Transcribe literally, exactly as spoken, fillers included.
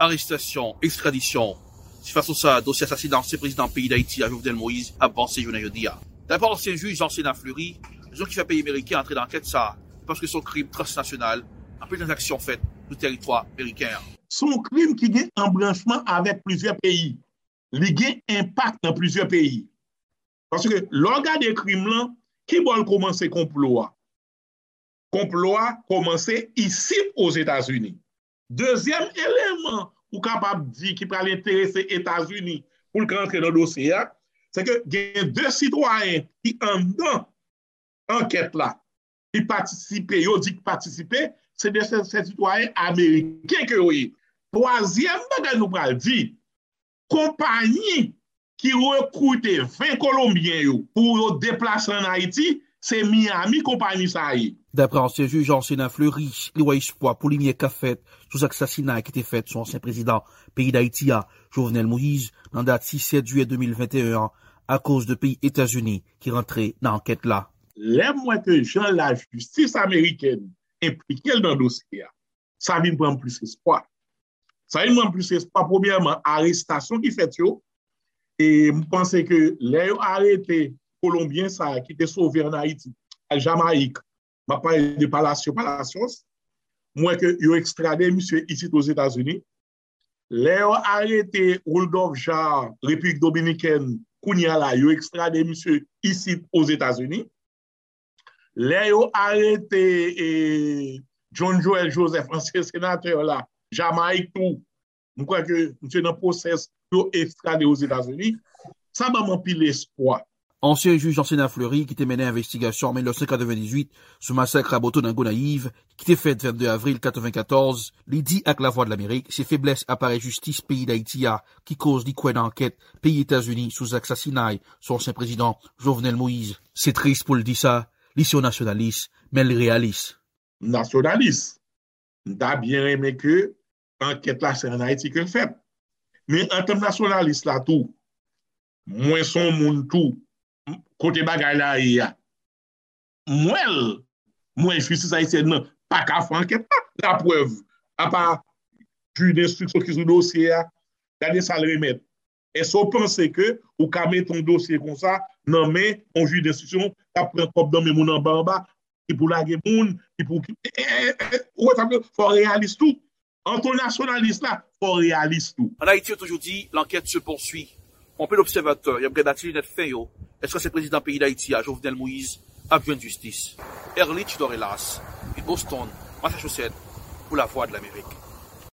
arestasyon, ekstradisyon. Se fason sa, dosye asasina ansyen prezidan peyi Dayiti a, Jovenel Moïse, ap vanse jounen jodi a. Daprè ansyen jij Jean Sénat Fleury, rezon ki fè peyi meriken antre nan ankèt sa a, se paske se yon krim transnasyonal, anpil tranzaksyon fèt sou tèritwa meriken an. Se yon krim ki gen anbranchman avèk plizyè peyi. Li gen enpak nan plizyè peyi. Paske lè w gade krim lan, ki bò l kòmanse konplo a? Konplo a kòmanse isit Ozetazini. Dezyèm eleman ou kapab di ki pral enterese Etazini pou l ka antre nan dosye a, se ke gen de sitwayen ki anndan ankèt la, ki patisipe, yo di ki patisipe, se de se, se sitwayen ameriken ke yo ye. Twazyèm bagay nou pral di, konpayi ki rekrite ven Kolonbyen yo pou yo deplase ann Ayiti, se Miami konpayi sa a ye. Daprè ansyen jij Jean Sénat Fleury, li wè espwa pou limyè ka fèt sou zak sasinay ki te fèt sou ansyen prezidan peyi Dayiti a, Jovenel Moïse, nan dat sis sèt jiyè de mil venteyen an, akoz de peyi Etazini ki rantre nan ankèt la. Lè m wè ke jan lajistis amerikèn enplike l nan dosye a, sa vin ban m plis espwa. Sa vin ban m plis espwa, premyèman, arestasyon ki fèt yo, e m panse ke lè yo arete Kolonbyen sa a ki te sove ann Ayiti, al Jamayik, m ap pale de Palacio Palacios, m wè ke yo ekstrade misye isit Ozetazini. Lè yo arete Rudolph Jaar, Repiblik Dominikèn, kounye a la, yo ekstrade misye isit Ozetazini. Lè yo arete, e, John Joel Joseph, ansyen senatè la, Jamayik tou, m kwè ke misye nan pwosès pou yo ekstrade Ozetazini. Sa ban m anpil espwa. Ansyen jij Jean Sénat Fleury, ki te mennen envestigasyon an mil nèf san katrevendizuit sou masak Raboto nan Gonayiv, ki te fèt vennde avril katrevenkatòz, li di ak Lavwadlamerik se feblès aparèy jistis peyi Dayiti a ki koz li kwè nan ankèt peyi Etazini sou zak sasinay sou ansyen prezidan Jovenel Moïse. Se tris pou l di sa, li se yon nasyonalis, men li reyalis. Nasyonalis. M ta byen renmen ke ankèt la se ann Ayiti ke l fèt. Men antank nasyonalis la tou, mwen se yon moun tou, kote bagay la ye a, m wè l, m wè jistis ayisyèn nan pa ka fè ankèt la. Laprèv, apa jij denstriksyon ki sou dosye a, gade sa l remèt. Èske w panse ke ou ka mete yon dosye konsa nan men yon jij denstriksyon k ap pran kòb nan men moun anba anba, ki pou lage moun, ki pou, ki, e, e, e, e, ou wè sa m di, fò w reyalis tou. Anto nasyonalis la, fò w reyalis tou. Ann Ayiti, yo toujou di, l'enquête se poursuit. Pou anpil obsèvatè, y ap gade ak ti linèt fen yo, èske se prezidan peyi Dayiti a, Jovenel Moïse, ap jwenn jistis? Erlich Dorclas, Boston, Massachusetts, pou Lavwadlamerik.